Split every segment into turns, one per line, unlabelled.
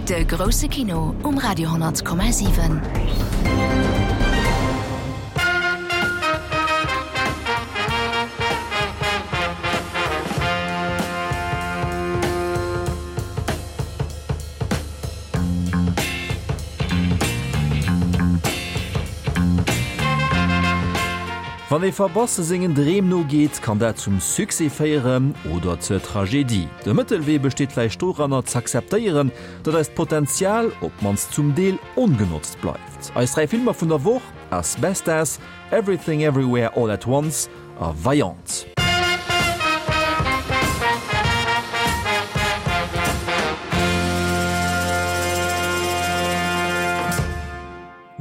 De grousse Kino um Radio 10,7.
Wann ee verbasse sengen Dreem nogeet, kann dat zum Succès féieren oder zur Tragedie. De Mëttelwee besteet vläicht doranner, z'akzeptéieren, datt eist Potenzial, op d'mannst zum Deel, ongenotzt bleift. Eis 3 Filmer vun der Woch, As Bestas, Everything Everywhere All at Once a Vaillante.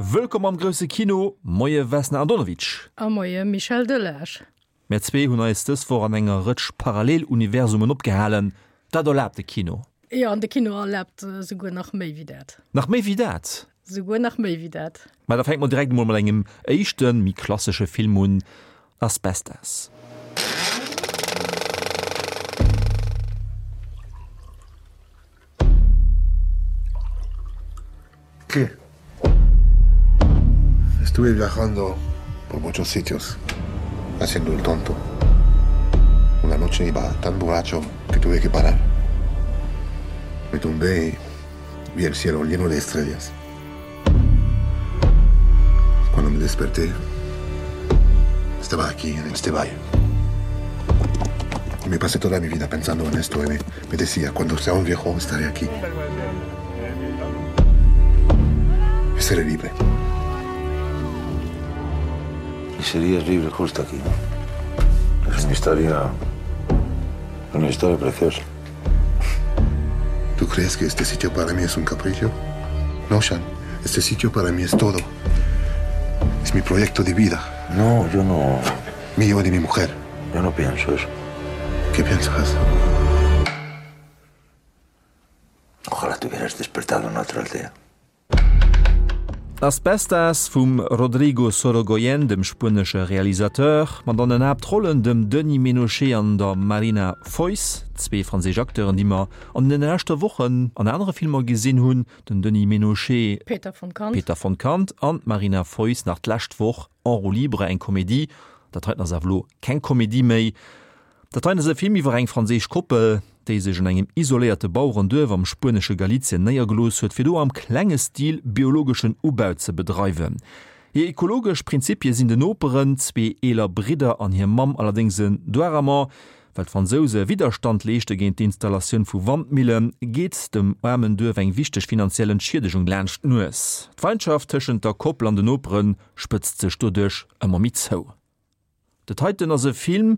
Wëllkomm am grousse Kino, Moie Vesna Andonovic.
A moie Michel Delage.
Mär zwee hunn eis dës Woch an enger Rëtsch Paralleluniversumen opgehalen. Dat erlaabt de Kino.
Jo, an de Kino erlaabt souguer nach méi wéi dat.
Nach méi wéi dat?
Souguer nach méi wéi dat.
Mä da fänke mer direkt emol mat engem éischten, méi klassesche Film un, Asbestas.
¿Qué? Estuve viajando por muchos sitios, haciendo el tonto. Una noche iba tan borracho que tuve que parar. Me tumbé y vi el cielo lleno de estrellas. Cuando me desperté, estaba aquí, en este valle. Y me pasé toda mi vida pensando en esto y me, me decía, cuando sea un viejo estaré aquí. Y seré libre.
Y serías libre justo aquí, ¿no? Es una historia... Una historia preciosa.
¿Tú crees que este sitio para mí es un capricho? No, Shan. Este sitio para mí es todo. Es mi proyecto de vida.
No, yo no...
Mío y de mi mujer.
Yo no pienso eso.
¿Qué piensas?
Ojalá te hubieras despertado en otra aldea.
Asbestas vum Rodrigo Sorogoyen, dem spuenesche Realisateur, mat an den Haaptrollen dem Denis Ménochet an der Marina Foïs, zwee franséisch Acteuren, déi mer an den leschte Wochen an anere Filmer gesinn hunn, den Denis Ménochet,
Peter von Kant,
Peter von Kant, an d'Marina Foïs nach d'lescht Woch, En roue libre, eng Komedie. Dat heiten ass awer elo keng Komedie méi. Dat heien ass e Film iwwer eng franséisch Koppel, déi sech an engem isoléierte Bauerenduerf am spuenesche Galizien néiergelooss huet, fir do am klenge Stil biologeschen Ubau ze bedreiwen. Hir ekologesch Prinzipie sinn den Noperen, zwee eeler Bridder an hir Mamm, allerdéngs en Doiramant. Well d'Fransouse Widderstand leeschte géint d'Installatioun vu Wandmillen, geet dem aarmen Duerf eng wichteg finanziell Entschiedegung laanscht d'Nues. D'Feindschaft tëschent der Koppel an den Nopere spëtzt sech doduerch ëmmer méi zou. Dat heiten ass e Film,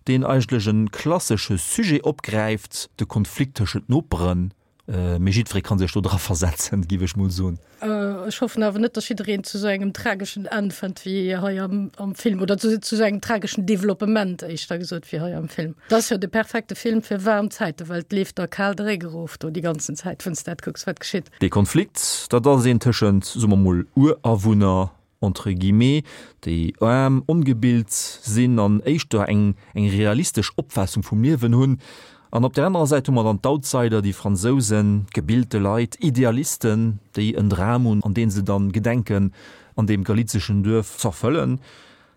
deen eigentlech e klassesche Sujet opgräift, de Konflikt tëschent Noperen. Mee jiddweree ka sech do dra versetzen, géif ech mol soen.
Ech hoffen awer net, datt jiddereen zu esou engem trageschen Enn fënnt wéi hei am, am Film, oder zu, zu esou engem trageschen Developpement, éischter gesot, wéi hei am Film. Dat ass jo de perfekte Film fir waarm Zäiten, well et leeft der kal de Réck erof do déi ganzen Zäit, wann s de dat kucks, wat geschitt.
Dee Konflikt, dat ass een tëschent, soe mer mol, Urawunner entre guillemets, déi aarm, ongebilt sinn an éischter eng eng realistesch Opfaassung vum Liewen hunn. An op där anerer Säit hu mer dann d'Outsider, déi Fransousen, gebilte Leit, Idealisten, déi en Dram hunn, an dee se dann gedenken an deem galizeschen Duerf z'erfëllen.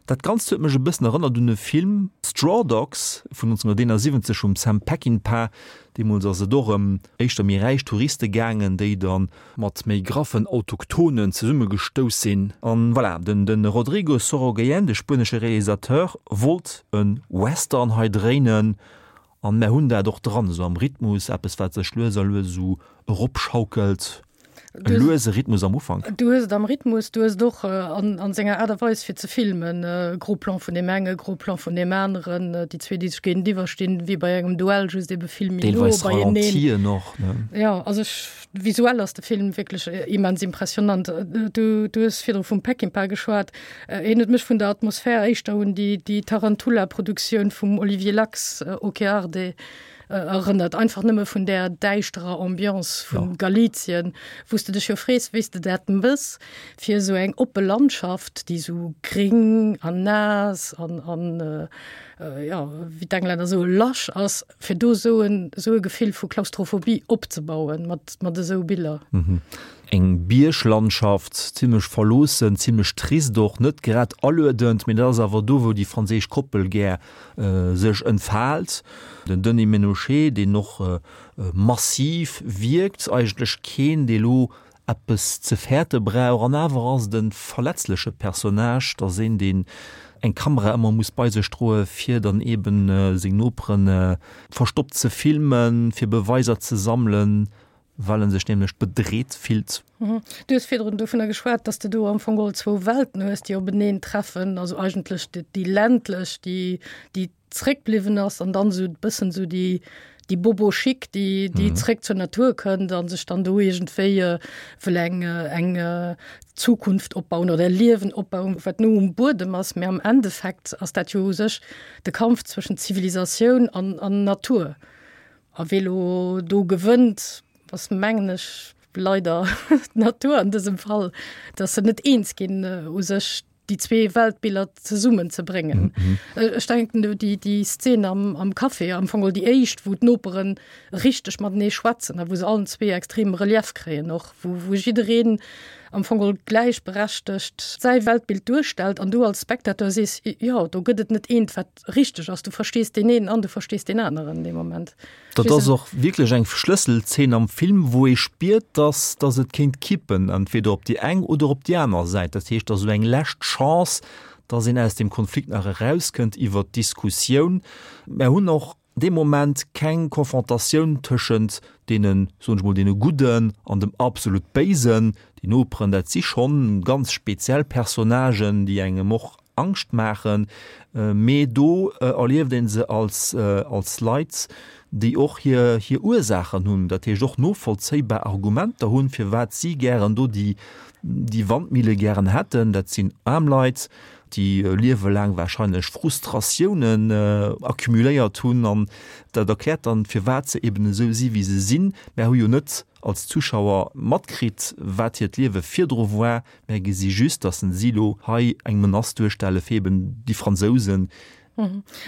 Dat Ganzt huet mech e bëssen erënnert un e Film, Straw Dogs vun 1971 vum Sam Peckinpah. Deemools ass et och ëm éischter méi räich Touriste gaangen, déi da mat méi graffen Autochtonen zesummegestouss sinn. An voilà, den de Rodrigo Sorogoyen, de spuenesche Realisateur, wollt e Western hei dréinen an mär hunn dat och dran, esou am Rhythmus, eppes wat sech lues a lues esou eropschaukelt. E luese Rhythmus am Ufank.
Du hues et am Rhythmus, du hues et och an senger Aart a Weis fir ze filmen, Gros Plan vun deem enge, Gros Plan vun deem aneren, déi zwee déi sech géintiwwer stinn, wéi bei engem Duell, just ebe vill méi no
Deelweis beieneen. Ralentien och, ne?
Jo, also ech, visuell ass de Film wierklech immens impressionant. Du, du hues virdru vum Peckinpah geschwat, hien huet mech vun der Atmosphär éischter un déi, déi Tarantula-Produktioun vum Olivier Lax, Ok Arde, Erënnert, einfach nëmme vun där däischterer Ambiance vu Galizien, wou s de dech jo frees, wéi s de dat mëss, fir esou eng oppe Landschaft, déi esou gréng an naass an an. jo, wéi d'Englänner soe lasch ass, fir do esou en, esou e Gefill vu Klaustrophobie opzebauen mat, mat esou Biller.
Eng Bierglandschaft, zimlech verloossen, zimlech trist och, net grad aluedend, mee dat ass awer do, wou déi franséisch Koppel gär sech entfaalt. Den Denis Ménochet, deen och massiv wierkt, eigentlech keen, dee lo eppes ze fäerte brauch, an awer ass et e verletzleche Personnage, et ass een, deen eng Kamera ëmmer muss bei sech droe fir dann eben seng Nopere verstoppt ze filmen, fir Beweiser ze sammelen, well en sech nämlech bedreet fillt.
Du hues virdrun dovunner geschwat, dass de do am Fong geholl zwou Welten hues, déi openeen treffen, also eigentlech déi ländlech, déi déi zréckbliwwen ass an dann esou e bëssen esou déi déi Bobo Chic, déi déi zréck zur Natur kënnt a sech dann do iergendwéi wëll eng eng Zukunft opbauen oder e Liewen opbauen, wat no um Buedem ass. Mä am Endeffekt ass dat jo u sech de Kampf zwëschent Zivilisatioun an an Natur. A wee lo do gewënnt, ass mengen ech leider d'Natur an dësem Fall, dass se net eens ginn u sech déi zwee Weltbiller zesummen ze bréngen. Ech denken do déi déi Szen am am Café, am Fong geholl déi éischt, wou d'Noperen richteg matenee schwätzen a wou se allen zwee extrem Relief kréien och, wou wou jiddereen am Fong geholl gläichberechtegt säi Weltbild duerstellt an du als Spectateur sees, jo do gëtt et net eent wat richteg ass, du verstees deen een an du verstees deen aneren dee Moment.
Dat ass och wierklech eng Schlësselzeen am Film, wou ee spiert, dass dass et kéint kippen, entweder op déi eng oder op déi aner Säit. Dat heescht, dass esou eng lescht Chance, dass een aus deem Konflikt nach erauskënnt iwwert d'Diskussioun. Mär hunn och dee Moment keng Konfrontatioun tëschent deenen, soen ech mol, deene Gudden an dem absolut Béisen. Déi Noperen, dat si schonn ganz speziell Personnagen, déi engem och Angscht maachen, mee do erlieft ee se als als Leit, déi och hir hir Ursaachen hunn, dat heescht och novollzéibar Argumenter hunn, firwat si gären do déi déi Wandmille gären hätten. Dat sinn aarm Leit, déi liewelaang warscheinlech Frustratiounen accumuléiert hunn an dat erkläert dann, firwat se eben esou si wéi se sinn. Mär hu jo net als Zuschauer matkritt, wat hiert Liewe virdru war, Mär gesi just, datt en si lo hei eng Menace duerstelle fir eben déi Fransousen.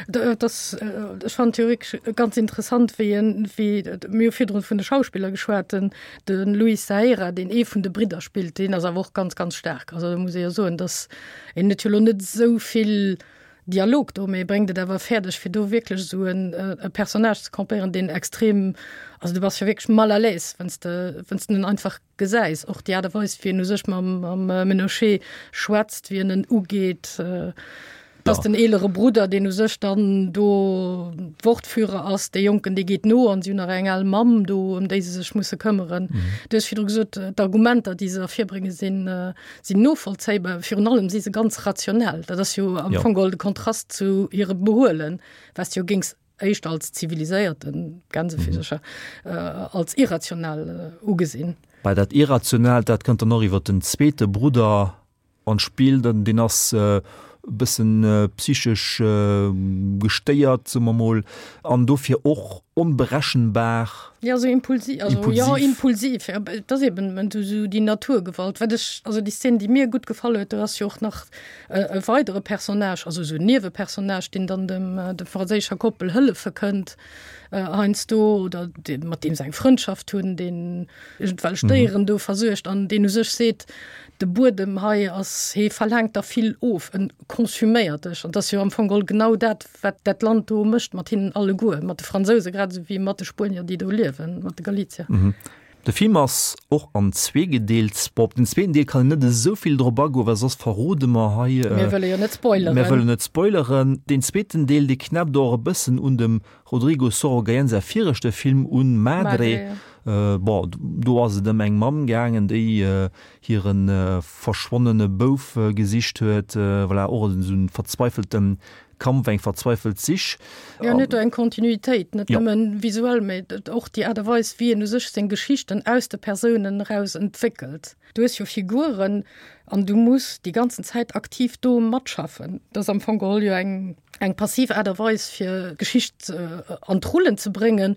Dat ass, ech fannen et jo wierklech ganz interessant, wéi en, wéi, mir hu virdrun vun de Schauspiller geschwat, den, de Luis Zahera, deen ee vun de Bridder spillt, deen ass awer och ganz, ganz staark. Also do muss ee jo soen, datt en huet jo lo net esou vill Dialog do, mee e bréngt et awer fäerdeg, fir do wierklech esou en e Personnage ze campéieren, deen extrem, also du bass jo wierklech mal à l'aise, wann s de, wann s de en einfach gesäis, och déi Aart a Weis, wéi en u sech mam, mam Ménochet schwätzt, wéi en en ugeet, dass den eelere Brudder, deen u sech dann do Wortführer ass, dee Jonken, dee geet no an si hunn nach eng al Mamm do, ëm déi se sech musse këmmeren. Du hues virdru gesot, d'Argumenter, déi se ervirbréngen, sinn, sinn novollzéibar. Virun allem si se ganz rationell. Dat ass jo am Fong geholl de Kontrast zu hirem Behuelen, wat s de jo géings éischter als ziviliséierten Gänsefüsercher als irrational ugesinn.
Bei dat Irrationaalt, dat kënnt dann och iwwer den zweete Brudder an d'Spill, deen ass e bëssen psychesch gestéiert, soe mer mol, an dofir och onberechenbar.
Jo, esou impulsiv, also jo, impulsiv, jo, et ass eben esou déi Naturgewalt. Wat ech, also déi Szen, déi mir gutt gefall huet, do ass jo och nach e weidere Personnage, also esou en Niewepersonnage, deen dann dem der franséischer Koppel hëllefe kënnt heiansdo oder dee mat deem se eng Frëndschaft hunn, deen iergendwelch Déieren do versuergt an deen u sech seet, de Buedem hei ass, hee verlaangt der vill of, en konsuméiert dech. An 't ass jo am Fong geholl genau dat, wat dat Land do mécht mat hinnen alleguer, mat de Fransouse grad esou wéi mat de Spuenier, déi do liewen, mat de Galizier.
De Film ass och an zwee gedeelt. Bon, op den zweeten Deel kann een net esou vill drop agoen, well soss verrode mer hei.
Mir wëlle jo net spoileren.
Mir wëllen net spoileren. Deen zweeten Deel, dee knäppt och e bëssen un dem Rodrigo Sorogoyen säi viregte Film un, Madre. Bon, do ass et ëm eng Mamm gaangen, déi hire verschwonnene Bouf gesicht huet. Voilà, och esou e verzweifelte Kampf, eng verzweifelt Sich.
Jo, en huet do eng Kontinuitéit, net nëmmen visuell, mä och déi Aart a Weis, wéi en u sech seng Geschichten aus de Persounen eraus entwéckelt. Du hues jo Figuren an du muss déi ganzen Zäit aktiv do matschaffen. Dat ass am Fong geholl jo eng, eng passiv Aart a Weis, fir d'Geschicht an d'Rullen ze bréngen.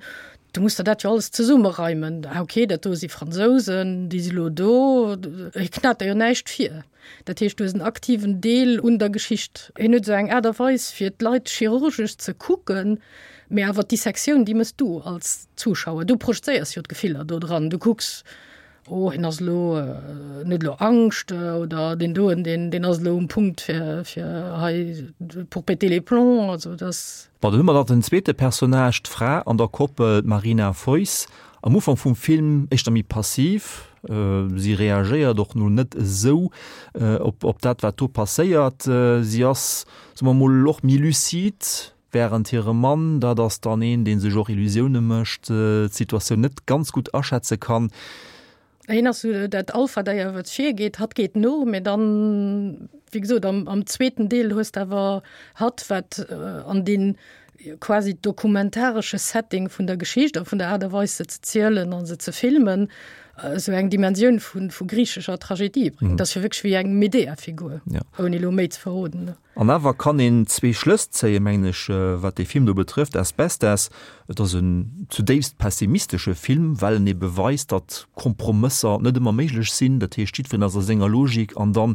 Du muss der dat jo alles zesummereimen. Ah okay, dat do si Fransousen, déi si lo do. Hie knat der jo näischt vir. Dat heescht, du hues en aktiven Deel un der Geschicht. Hien huet esou eng Aart a Weis, fir d'Leit chirurgesch ze kucken, mee awer d'Dissektioun, déi méchs du als Zuschauer. Du projezéiers jo d'Gefiller do dran. Du kucks, oh hien ass elo, en huet elo Angscht oder deen doen, deen, deen ass elo um Punkt fir, fir hei pour péter les plombs. Also dat.
Bon, dann hu mer nach den zweete Personnage, d'Fra an der Koppel, d'Marina Foïs. Am Ufank vum Film éischter méi passiv, si reagéiert och no net esou op op dat wat do passéiert. Si ass, soe mer mol, och méi lucide, wärend hire Mann, dat ass dann een, dee sech och Illusioune mécht, d'Situatioun net ganz gutt aschätze kann.
Hien ass esou dat Alpha-Déier, wat virgeet, hatt geet no, mee dann, wéi gesot, am, am zweeten Deel hues de awer hatt, wat an dee quasi dokumentaresche Setting vun der Geschicht a vun der Aart a Weis, se ze zielen a se ze filmen, esou eng Dimensioun vu, vu griichescher Tragedie bréngt. Dat ass jo wierklech wéi eng Medea-Figur, ouni elo méi ze verroden.
An awer kann een zwee Schlëss zéien, mengen ech, wat dee Film do betrëfft, Asbestas. Et ass en zudéifst pessimistesche Film, well en ebe weist, datt Kompromësser net ëmmer méiglech sinn. Dat heescht, jiddwereen ass a senger Logik an dann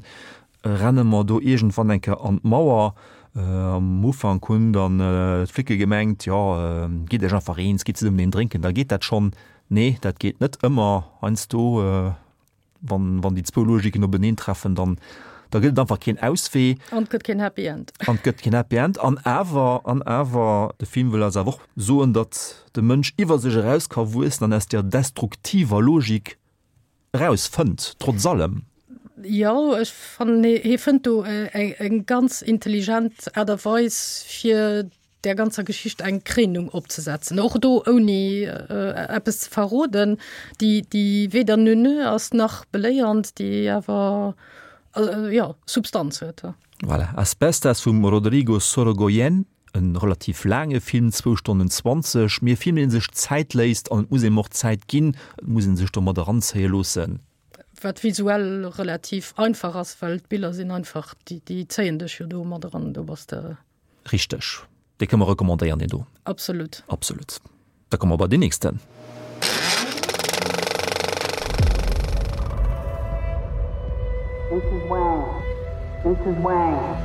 renne mer do iergendwann eng Kéier an d'Mauer. Am Ufank hunn dann d'Flicke gemengt, jo, gitt iech einfach eens, gitt zesummen een drénken, da geet dat schonn. Nee, dat geet net ëmmer. Heiansdo Wann, wann déi zwou Logiken openeen treffen, dann, da gëtt et einfach keen Auswee.
An et gëtt keen Happy End.
An et gëtt keen Happy End. An awer, an awer, de Film wëll eis awer och soen, datt de Mënsch iwwer sech eraus ka wuessen an aus där destruktiver Logik eraus fënnt, trotz allem.
Jo, ech fannen, hie fënnt do eng ganz intelligent Aart a Weis, fir där ganzer Geschicht eng Kréinung opzesetzen, och do ouni eppes ze verroden, déi, déi weder neuneu ass nach beléiernd, déi awer, jo, Substanz huet.
Voilà, Asbestas vum Rodrigo Sorogoyen, e relativ laange Film, zwou Stonnen 20, mee e Film, dee sech Zäit léisst an et muss eem och Zäit ginn, et muss ee sech do mat eranzéie loossen.
Wat visuell relativ einfach ass, well d'Biller sinn einfach, déi, déi zéien dech jo do mat eran, do bass de.
Richteg. Dee kënne mer recommandéieren, deen do.
Absolut.
Absolut. Da komme mer bei deen nächsten.
Mrs. Wang. Mrs. Wang.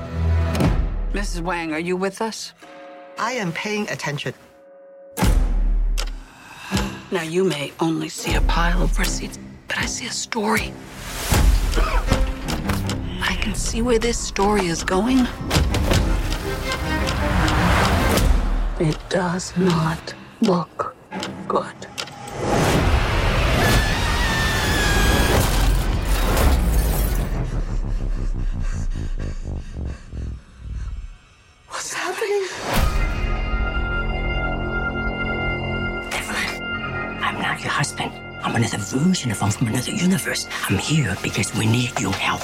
Mrs. Wang, are you with us?
I am paying attention.
Now you may only see a pile of receipts, but I see a story. I can see where this story is going. It does not look good.
What's happening?
Evelyn, I'm not your husband. I'm another version of him from another universe. I'm here because we need your help.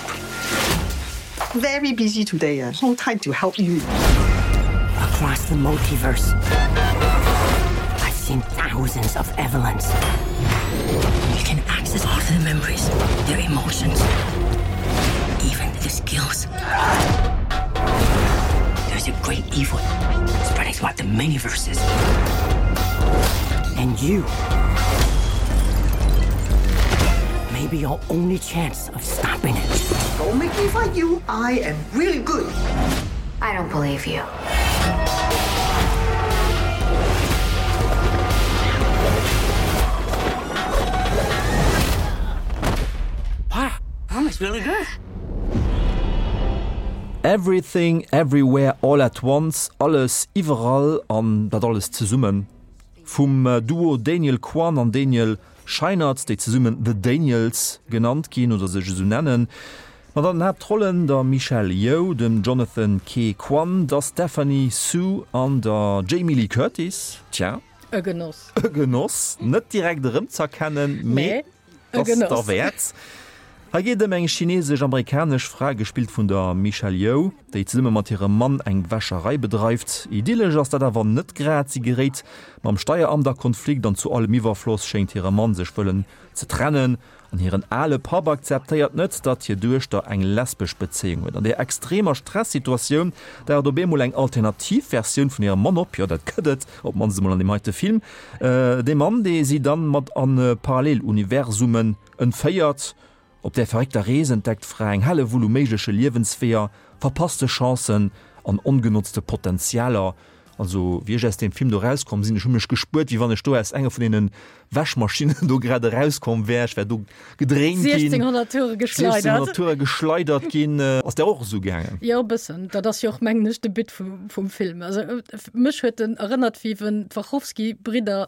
Very busy today. Uh, no time to help you.
Across the multiverse, I've seen thousands of Evelyns. You can access all their memories, their emotions, even the skills. There's a great evil spreading throughout the many verses. And you may be your only chance of stopping it.
Don't make me fight you. I am really good.
I don't believe you.
Wow, that really good.
Everything Everywhere All At Once, Alles iwwerall an dat alles zesummen, vum Duo Daniel Kwan an Daniel Scheinert, déi zesummen The Daniels genannt ginn oder sech esou nennen, mat an den Haaptrollen der Michelle Yeoh, dem Jonathan Ke Quan, der Stephanie Hsu an der Jamie Lee Curtis. Tja.
E Genoss.
E Genoss, net direkt erëmz'erkennen, mee.
E Genoss.
Ass derwäert. Hei geet et ëm eng chinesesch-amerikanesch Fra, gespillt vun der Michelle Yeoh, déi zesumme mat hirem Mann eng Wäscherei bedreift. Idyllesch ass dat awer net grad, si geréit mam Steieramt a Konflikt an zu allem Iwwerfloss schéngt hire Mann sech wëllen ze trennen an hiren ale Papp akzeptéiert net, datt hir Duechter eng lesbesch Bezéiung huet. An där extremer Stressituatioun daucht op eemol eng alternativ Versioun vun hirem Mann op, jo dat gëtt et, op d'mannst emol an deem heite Film, dee Mann, dee si dann mat an Paralleluniversumen Entféiert op där verréckter Rees entdeckt d'Fra eng Hellewull u méigleche Liewensweeër, verpasste Chancen an ongenotzte Potentialer. Also wéi ech aus deem Film do erauskomm sinn, ech hu mech gespuert, wéi wann ech do aus enger vun deene Wäschmaschinnen do grad erauskomm wär. Ech wär do gedréint ginn,
1600 Toure geschleidert.
1600 Toure geschleidert ginn. Ass där och esou gaangen?
Jo, e bëssen. Dat ass jo och, mengen ech, de But vum Film. Also mech huet en erënnert, wéi wenn d'Wachowski-Bridder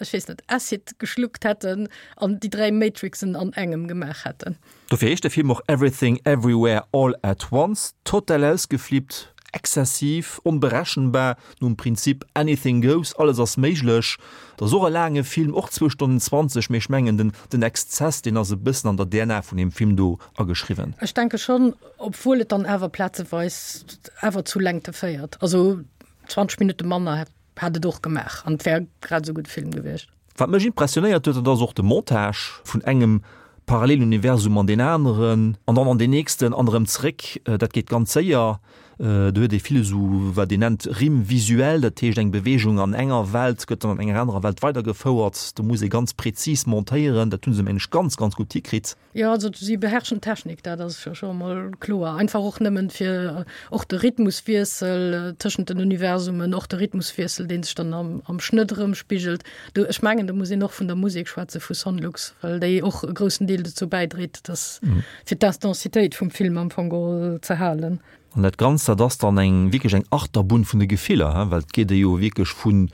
ech weess net, Acid geschluckt hätten an déi 3 Matrixen an engem gemaach hätten.
Dofir heescht de Film och Everything Everywhere All at Once. Total ausgeflippt, exzessiv, onberechenbar, nom Prinzip Anything goes, alles ass méiglech. Et ass och e laange Film, och zwou Stonnen 20, mee ech mengen den den Exzess, deen ass e bëssen an der DNA vun deem Film do ageschriwwen.
Ech denke schonn, obwuel et dann awer plazeweis awer zu Längte féiert. Also 20 Minutte manner hätt Hätt et och gemaach an et wär grad esou gudde Film gewiescht.
Wat mech impressionéiert huet, dat ass och de Montage vun engem Paralleluniversum an deen aneren an dann an deen nächsten an erëm zréck. Dat geet ganz séier. Do huet ee vill esou wat een nennt Rime visuelle, dat heescht eng Beweegung an enger Welt gëtt dann an enger anerer Welt weidergefouert. Do muss ee ganz prezis montéieren. Dat hu se mengen ech ganz, ganz gutt hikritt.
Jo, also si beherrschen d'Technik, dat ass jo scho emol kloer. Einfach och nëmmen fir och de Rhythmuswiessel tëschent den Universumen, och de Rhythmuswiessel, dee sech dann am, am Schnëtt erëmspigelt. Do, ech mengen, do muss een och vun der Musek schwätze vu Sonlux, well déi och e groussen Deel dozou bäidréit, dass fir d'Intensitéit vum Film am Fong geholl ze halen.
An dat Ganzt, dat ass dann eng wierklech eng Achterbunn vun de Gefiller, he, well et geet ee jo wierklech vu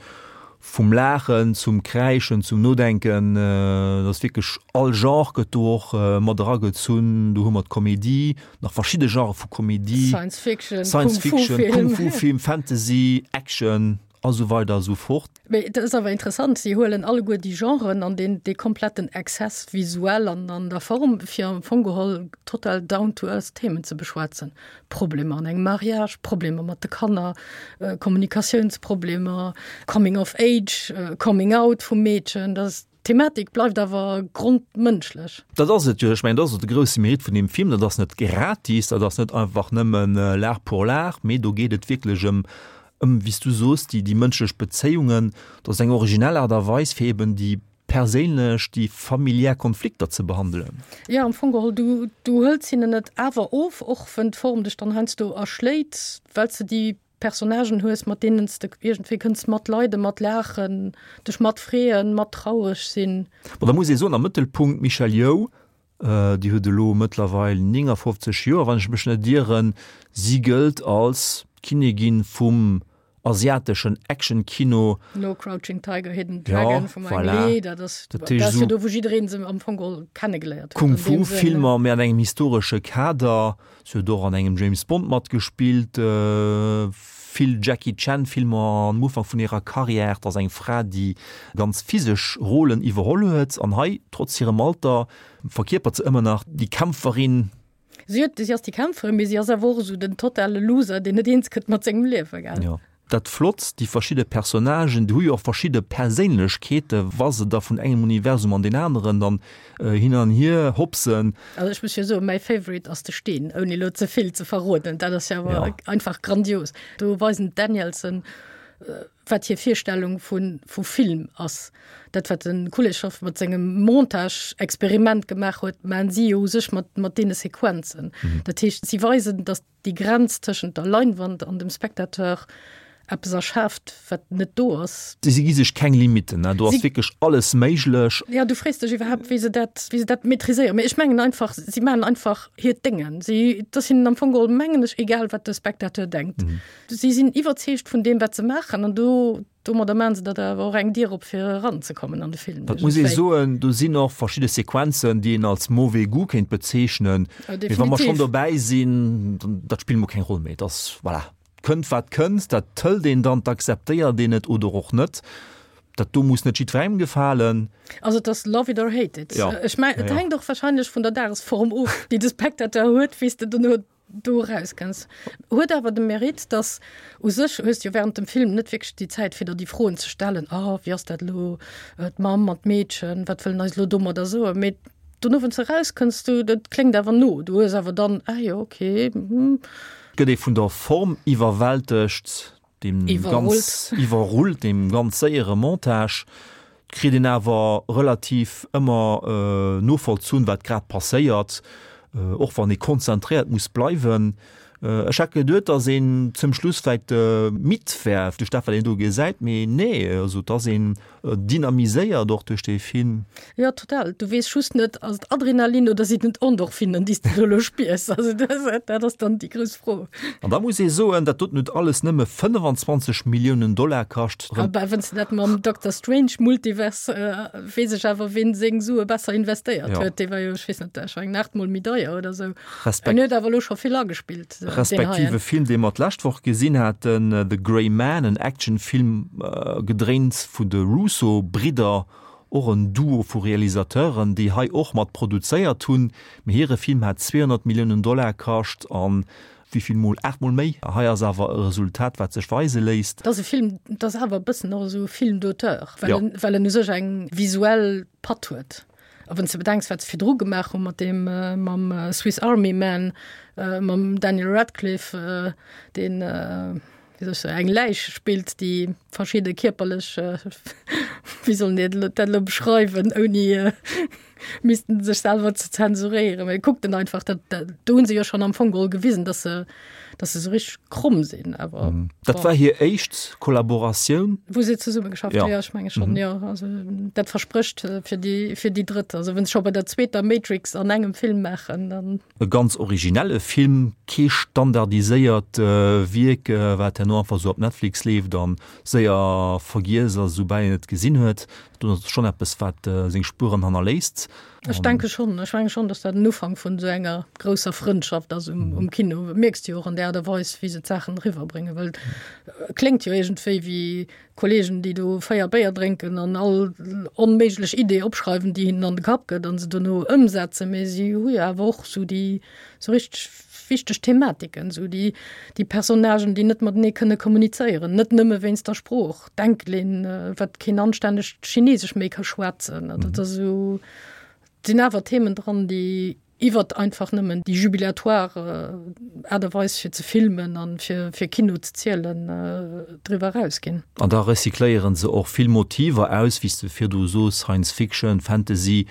vum Laachen zum Kräischen, zum Nodenken. Et ass wierklech all Genre gëtt do och mat eragezunn. Do hu mer d'Komedie, nach verschidde Genrë vu Komedie,
Science Fiction,
Science Fiction, Kung-Fu-Film, Fantasy, Action a sou weider a sou fort.
Mee et ass awer interessant, si huelen alleguer déi Genren an deen, dee kompletten Excess visuell an an der Form, fir am Fong geholl total down to earth Themen ze beschwätzen. Problemer an engem Mariage, Problemer mat de Kanner, Kommunikatiounsproblemer, Coming of age, Coming out vum Meedchen. Dat ass, d'Thematik bleift awer grondmënschlech.
Dat ass et jo. Ech mengen, dat ass och de grousse Mérite vun deem Film. Dat ass net gratis, dat ass net einfach nëmmen l'art pour l'art, mee do geet et wierklech ëm, ëm, wéi s du soos, déi, déi mënschlech Bezéiungen. Dat ass eng originell Aart a Weis, fir eben déi perséinlech, déi familiär Konflikter ze behandelen.
Jo, am Fong geholl, du, du hëls hinnen et awer of, och wenn d'Form dech dann heiansdo erschléit, well s de déi Personnagen hues, mat deenen s de iergendwéi kënns matleiden, matlaachen, dech matfreeën, mattraureg sinn.
Bon, da muss ee soen, am Mëttelpunkt d'Michelle Yeoh, Déi huet elo mëttlerweil 59 Joer, wann ech mech net ieren. Si gëllt als d'Kinnigin vum asiateschen Action-Kino.
No Crouching Tiger, Hidden Dragon vum Ang Lee, dat ass dat ass jo do, wou jiddereen se am Fong geholl kennegeléiert
huet. Kung-Fu-Filmer, mee an engem historesche Kader. Si huet och an engem James Bond matgespillt, vill Jackie Chan Filmer am Ufank vun hirer Karriär. Et ass eng Fra, déi ganz physesch Rolen iwwerholl huet an hei, trotz hirem Alter, verkierpert se ëmmer nach déi Kämpferin.
Si huet, si ass déi Kämpferin, mee si ass awer och esou den totale Loser, deen net eens gëtt mat sengem Liewen, gell?
Jo. Dat Flotts, déi verschidde Personnagen, déi hu jo och verschidde Perséinlechkeete wa se da vun engem Universum an deen aneren dann hin an hier hopsen.
Also ech muss jo soen, mäi Favorite ass de Steen, ouni elo ze vill ze verroden. Dat ass jo awer einfach grandios. Do weisen d'Danielsen, wat hir Virstellung vu vu Film ass. Dat wat de Kuleshov mat sengem Montage-Experiment gemaach huet, maachen si jo u sech mat mat deene Sequenzen. Dat heescht, si weisen, datt déi Grenz tëschent der Leinwand an dem Spectateur eppes erschaaft, wat net do ass.
Si gi sech keng Limitten, do ass wierklech alles méiglech.
Jo, du frees dech iwwerhaapt, wéi se dat, wéi se dat maîtriséieren. Mee ech mengen einfach, si maachen einfach hiert Déngen. Si, et ass hinnen am Fong geholl, mengen ech, egal, wat de Spectateur denkt. Si sinn iwwerzeegt vun deem, wat se maachen an do Domadder maachen se der awer och eng Dier op fir eranzekommen an de Film.
Dat muss ee soen, do sinn och verschidde Sequenzen, déi een als mauvais goût kéint bezeechnen. Mee wa mer schonn dobäi sinn, dat spillt mol keng Roll méi. Et ass, voilà, kënnt wat kënnt, dat hëlt een dann, dat akzeptéiert een et oder och net. Dat do muss net jiddwerengem gefalen.
Also et ass love it or hate it. Ja. Ech mein, et ja, ja. hänkt och wahrscheinlech vun der Dagesform of, déi de Spectateur huet, wéi s de dono do erauskënns. Huet awer de Mérite, dass u sech hues de jo während dem Film net wierklech déi Zäit, fir der déi Froen ze stellen, oh, wéi ass dat elo, d'Mamm an d'Meedchen, wat wëllen eis elo domadder soen? Mee dono, wann s de erauskënns, du, dat kléngt awer no, du hues awer dann, ah jo, okay, hm.
Gëtt ee vun der Form iwwerwältegt, Deem ganz iwwerrullt, deem ganz séiere Montage, kritt een awer relativ ëmmer novollzunn, wat grad passéiert, och wann ee konzentréiert muss bleiwen. Ech hätt geduet, datt een zum Schluss vläicht midd wär duerch dat, wat een do gesäit, mee nee, also et ass een Dynamiséiert och duerch dee Film.
Jo, total. Du weess just net, ass et Adrenalin oder sinn et Endorphinen, déi s de do elo spiers? Also dat ass dann déi grouss Fro.
An da muss ee soen, dat doten huet alles nëmme 25 Milliounen Dollar kascht.
A bah, wann s de dat mam Doctor Strange Multiverse, weess ech awer, ween seng Sue besser investéiert huet. Dee war jo, ech weess net, ech mengen aachtmol méi deier oder esou. En huet awer elo scho vill agespillt.
Respektiv e Film, dee mer d'lescht Woch gesinn haten, The Gray Man, en Actionfilm, gedréint vun de Russo-Bridder, och en Duo vu Realisateuren, déi hei och mat produzéiert hunn. Mee hire Film hat 200 Milliounen Dollar kascht an wéi vill mol? 8 mol méi. Hei ass awer e Resultat, wat sech weise léisst.
Et ass e Film, et ass awer e bëssen och esou e Film d'auteur, well en, well en u sech eng visuell Patt huet. A wann s de bedenks, wat se virdru gemaach hu mat deem, mam Swiss Army Man, mam Daniel Radcliffe, deen, wéi soll ech soen, eng Läich spillt, déi verschidde kierperlech, wéi soll een dat elo beschreiwen, ouni missten sech selwer ze zensuréieren, mee kuckt en einfach, dat, do hu se jo schonn am Fong geholl gewisen, datt se, datt se esou richteg kromm sinn, awer
Dat war hir éischt Kollaboratioun.
Wou se zesumme geschafft hunn, jo, ech menge schonn, jo. Also dat versprécht fir déi, fir déi drëtt. Also wann se scho bei der zweeter Matrix an engem Film maachen, dann.
E ganz originelle Film, kee standardiséiert Wierk, wat herno einfach esou op Netflix leeft a séier vergiess ass, esoubal een et gesinn huet. Dat ass schonn eppes, wat seng Spueren hannerléisst.
Ech denke schonn. Ech menge schonn, datt dat en Ufank vun esou enger grousser Frëndschaft ass um, um Kino. Mierks de jo och an der Aart a Weis, wéi se d'Saachen eriwwerbréngen, well et kléngt jo iergendwéi wéi Kolleegen, déi do 4 Béier drénken an all onméiglech Idee opschreiwen, déi hinnen an de Kapp gëtt an se dono ëmsetzen. Mee si hu jo awer och esou déi esou richteg wichteg Thematiken, esou déi, déi Personnagen, déi net matenee kënne kommunizéieren, net nëmme wéinst der Sprooch, d'Enkelin, wat keen anstännegt Chinesesch méi ka schwätzen. Dat ass esou, et sinn awer Themen dran, déi iwwert einfach nëmmen déi jubilatoire Aart a Weis fir ze filmen an fir, fir Kino ze zielen, driwwer erausginn.
An da recycléiere se och vill Motiver aus, wéi s de virdu sos, Science Fiction, Fantasy,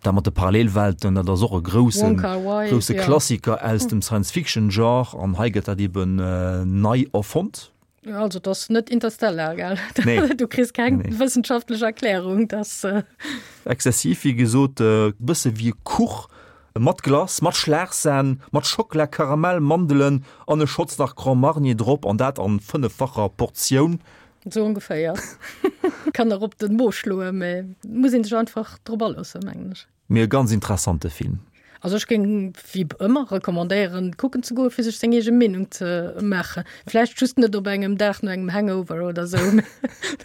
Dat mat de Parallelwelten, dat ass och e grousse, grousse Klassiker aus dem Science-Fiction-Genre an hei gëtt dat eben nei erfonnt.
Also et ass net Interstellar, gell? Nee. Du kriss keng nee. wëssenschaftlech Erklärung, dass. Äh
Exzessiv, wéi gesot, e bësse wéi e Kuch mat Glace, mat Schlagsahn, mat Schockela, Karamell, Mandelen an e Schotz nach Grand Marnier drop an dat an fënneffacher Portioun.
Sou ongeféier. Kann nach op den Mo schloen, mee muss een sech einfach drop aloossen, mengen ech.
Mee e ganz interessante Film.
Also ech géing wéi ëmmer recommandéieren kucken ze goen, fir sech seng eege Meenung ze maachen. Vläicht just net op engem Dag no engem Hangover oder sou, mee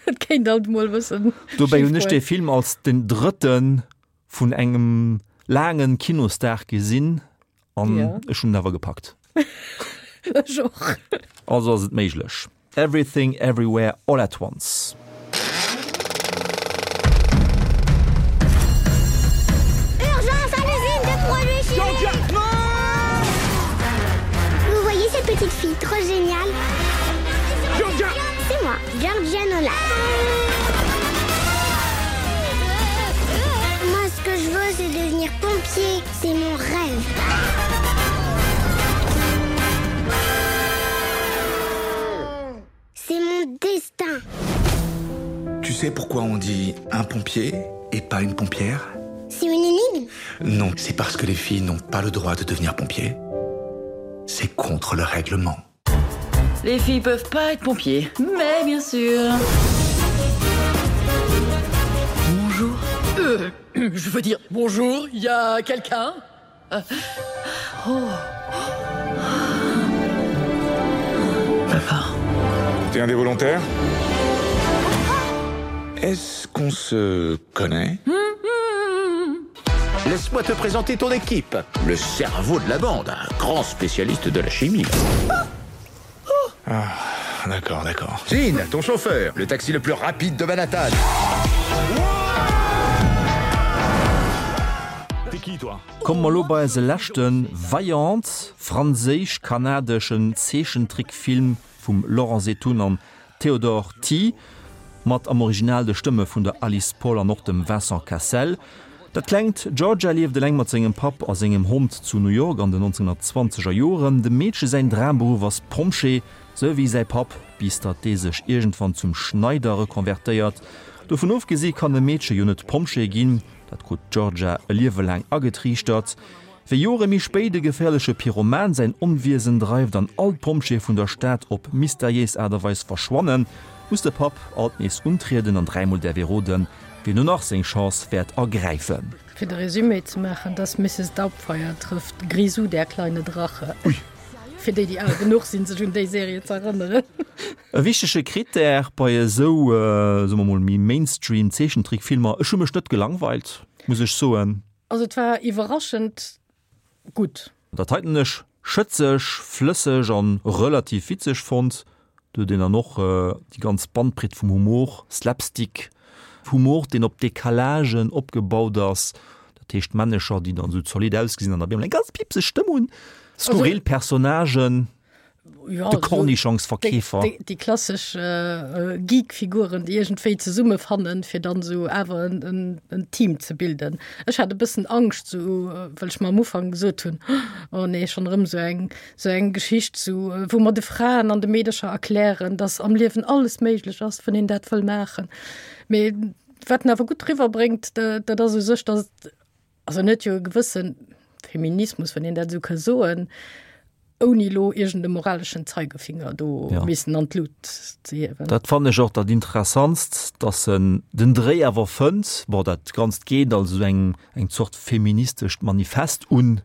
dat kéint alt emol e bëssen
Dobäi hunn ech dee Film als den drëtten vun engem laangen Kinosdag gesinn an ech hunn en awer gepackt.
Ech och.
Also ass et méiglech. Everything Everywhere All at Once.
Urgence à l'usine de produits chimiques Vous voyez cette petite fille trop géniale Georgia C'est moi, Georgia Nolan. Moi, ce que je veux, c'est devenir pompier. C'est mon rêve. C'est mon destin.
Tu sais pourquoi on dit un pompier et pas une pompière
C'est une énigme
Non, c'est parce que les filles n'ont pas le droit de devenir pompiers. C'est contre le règlement.
Les filles peuvent pas être pompiers, mais bien sûr. Bonjour.
Euh, je veux dire bonjour, il y a quelqu'un euh,
oh. Papa.
T'es un des volontaires?
Est-ce qu'on se connaît Laisse-moi te présenter ton équipe, le cerveau de la bande, un grand spécialiste de la chimie. Ah, d'accord, d'accord. Jean, ton chauffeur, le taxi le plus rapide de Manhattan.
Komme mer lo bei eise leschte Vaillant, franséisch-kanadeschen Zeechentrickfilm vum Laurent Zeitoun an Théodore Ty, mat am Original de Stëmme vun der Alice Paul an och dem Vincent Cassel. Dat klengt Georgia lieft eleng mat sengem Papp a sengem Hond zu New York an den 1920er Joren. Dem Meedche säin Dramberuff ass Pompjee, sou wéi säi Papp, bis datt dee sech iergendwann zum Schneider rekonvertéiert. Dovun ofgesi kann e Meedche jo net Pompjee ginn, dat krut d'Georgia e Liewe laang agetriichtert. Wéi Jore méi spéit e geféierleche Pyroman säin Onwiesen dreift an all d'Pompjeeë vun der Stad op mysteriéis Aart a Weis verschwannen, muss de Papp alt nees untrieden an dräimol däerf ee roden, wien no nach seng Chance wäert ergräifen.
Fir de Resumé ze maachen, dass Mrs. Doubtfire trëfft Grisou, der kleine Drache.
Ui.
Fir déi, déi al genuch sinn, sech un déi Serie ze erënneren.
E wichtege Critère bei esou, soe mer mol, méi Mainstream Zeechentrickfilmer, ech hu mech net gelangweilt, muss ech soen.
Also et war iwwerraschend gutt.
Dat heiten hunn ech schëtzeg, flësseg an relativ witzeg fonnt. Do huet een dann och déi ganz Bandbreet vum Humor, Slapstick Humor, deen op Decalagen opgebaut ass, dat heescht Männecher, déi dann esou zolidd ausgesinn an op eemol eng ganz piepseg Stëmm hunn, skurril Personnagen.
ja,
de Kornischongsverkeefer.
Déi, déi, déi klassesch äh, Geek-Figuren, déi iergendwéi zesummefannen, fir dann esou awer en, en, en Team ze bilden. Ech hat e bëssen Angscht, sou, äh, well ech mer am Ufank gesot hunn, oh nee, schonn erëm sou eng, sou eng Geschicht, sou, äh, wou mer de Fraen an de Meedercher erklären, dass am Liewen alles méiglech ass, wann een dat wëll maachen. Mee wat en awer gutt riwwerbréngt, dat ass u sech, dass Also en huet jo e gewësse Feminismus, wann een dat esou ka soen, ouni elo iergend e moraleschen Zeigefinger do
ja.
missen an d'Lut ze hiewen.
Dat fannen ech och dat Interessantst, dass en den Dréi awer fënnt. Bon, dat Ganzt geet als esou eng, eng Zort feministescht Manifest un,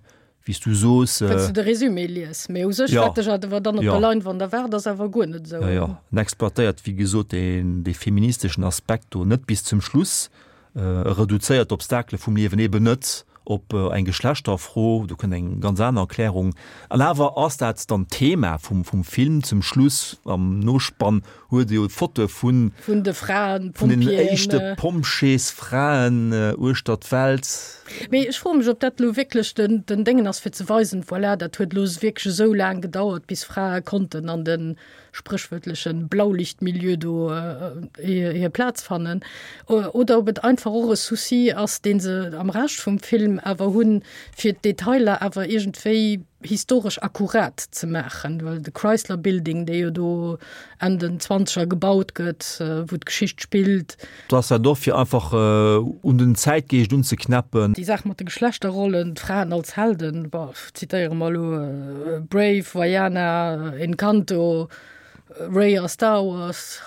wéi s du soos.
Wann s du de Résumé lies, mee u sech,
Ja.
wat dech awer dann op
Ja.
der Leinwand erwaart, ass awer guer net esou.
Ja, ja. En exploitéiert, wéi gesot, deen, dee feministeschen Aspekt do net bis zum Schluss. E reduzéiert d'Obstakele vum Liewen eben net op eng Geschlechterfro, do kënnt eng ganz aner Erklärung. An awer ass dat dann d'Thema vum, vum Film. Zum Schluss, am Nospann, huet e jo d'Fotoe vun.
Vun de Fraen,
Vun den
Pompjeeën.
éischte Pompjeesfraen uechter d'Welt.
Mee ech froe mech, ob dat elo wierklech den, den Déngen ass, fir ze weisen, voilà, dat huet elo wierklech esou laang gedauert, bis Frae konnten an de spréchwuertleche Blaulichtmilieu do hir Plaz fannen, oder ob et einfach och e Souci ass, dee se am Rescht vum Film awer hunn, fir d'Detailer awer iergendwéi historesch akkurat ze maachen, well de Chrysler Building, dee jo do Enn den Zwanzeger gebaut gëtt, wou d'Geschicht spillt.
Do ass dat och fir einfach un den Zäitgeescht unzeknäppen.
Déi Saach mat de Geschlechterrollen, d'Fraen als Helden, bon, zitéiere mer elo Brave, Vaiana, Encanto, Rey a Star Wars,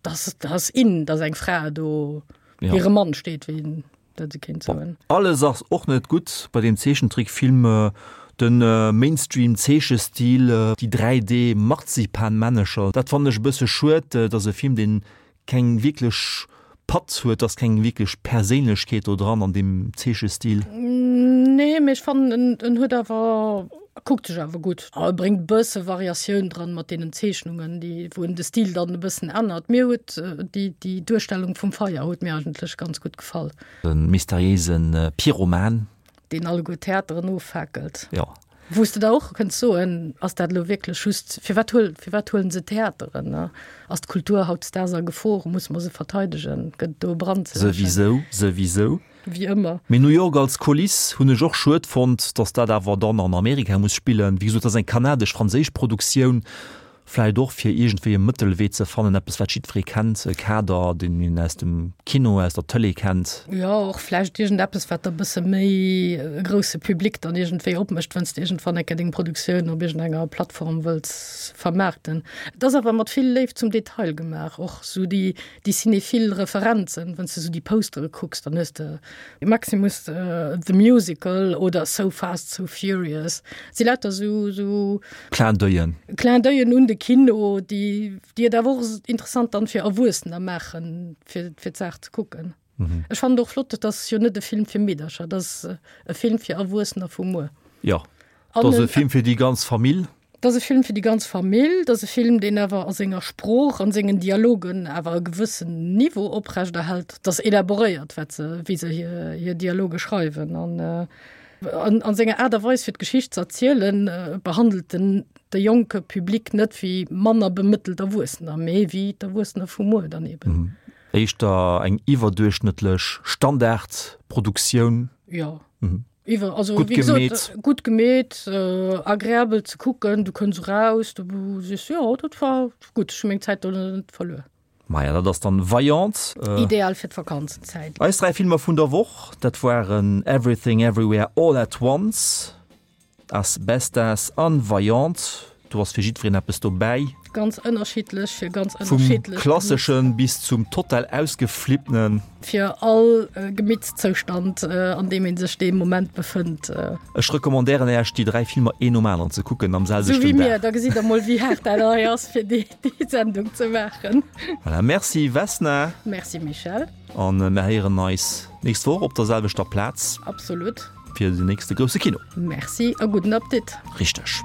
dass dass in, dass eng Fra do
Ja.
hire Mann steet, wéi een dat esou kéint soen.
Alles ass och net gutt bei deem Zeechentrickfilm, de Mainstream-Zeechestil, déi 3D-Marzipanmännecher, dat fannen ech e bësse schued. Et ass e Film, deen keng wierklech Patt huet, ass keng wierklech Perséinlechkeet do dran an deem Zeechestil.
Nee, mee ech fannen en en huet awer, kuckt sech awer gutt. E bréngt e bësse Variatioun dran mat deenen Zeechnungen, déi wou en de Stil dann e bëssen ännert. Mir huet déi déi Duerstellung vum Feier huet mir eigentlech ganz gutt gefall.
De mysteriéise Pyroman.
Deen alleguer d'Theateren offaakelt.
Jo.
Wou s de der och kënns soen, ass dat elo wierklech just, firwat huel, firwat huelen se d'Theateren, ne? Ass d'Kultur hautdesdaags a Gefor? Musse mer se verteidegen? Gëtt et do e Brand ze läschen?
Souwisou, souwisou.
Wéi ëmmer.
Mee New York als Kuliss hunn ech och schued fonnt, datt dat awer dann an Amerika muss spillen. Wéi gesot, dat ass eng kanadesch-franséisch Produktioun. Vläit och fir iergendwéi e Mëttelwee ze fannen, eppes wat jiddweree kennt, e Kader, deen een aus dem Kino, aus der Tëlee kennt.
Jo, och vläicht iergendeppes, wat da bësse méi e grousse Public dann iergendwéi opmécht, wann s de iergendwann eng Kéier deng Produktioun op iergendenger Plattform wëlls vermaarten. Et ass awer mat vill Léift zum Detail gemaach, och esou déi, déi cinéphile Referenzen. Wann s de esou déi Postere kucks, dann hues de Maximus the Musical oder So Fast, So Furious. Et si lauter esou, esou.
Clin d'oeil'en.
Clin d'oeil'en un de. Kino, déi, déi et awer och interessant dann fir Erwuessener maachen, fir, fir d'Saach ze kucken. Mhm. Ech fannen et och flott, et ass jo net e Film fir Meedercher, et ass e Film fir Erwuessener vu muer.
Jo, et ass e Film fir déi ganz Famill.
Et ass e Film fir déi ganz Famill, et ass e Film, deen awer a senger Sprooch, an sengen Dialogen awer e gewëssen Niveau oprechterhält. Et ass elaboréiert, wat se, wéi se hir, hir Dialoge schreiwen. An an, an senger Aart a Weis fir d'Geschicht ze erzielen, behandelt en de jonke Public net wéi manner bemëttelt Erwuessener, mee wéi d'Erwuessener vu muer dann eben.
Éischter eng iwwerduerchschnëttlech Standardproduktioun.
Jo. Iwwer, also Gutt wéi gesot, gemeet. gutt gemeet, agreabel ze kucken, du kënns eraus, du sees, jo, dat war gutt, ech hu meng Zäit do net verluer.
Maja, dat ass dann Vaillant.
Ideal fir d'Vakanzenzäit.
Eis 3 Filmer vun der Woch, dat waren Everything Everywhere All at Once, As Bestas an Vaillant. Do ass fir jiddwereen eppes dobäi.
Ganz ënnerschiddlech fir ganz
Vum ënnerschiddlech klassesche bis zum total ausgeflipptenen.
Fir all Gemittszoustand, an deem ee sech dee Moment befënnt.
Ech recommandéieren Äech déi 3 Filmer een nom aneren ze kucken am selwechten Dag.
Sou wéi mir, da gesitt der mol wéi haart dat hei ass fir déi Sendung ze maachen.
Voilà, merci Vesna.
Merci Michèle.
An mir héieren eis nächst Woch op der selwechter Plaz.
Absolut.
Fir den nächste grousse Kino.
Merci a gudden Appetit.
Richteg.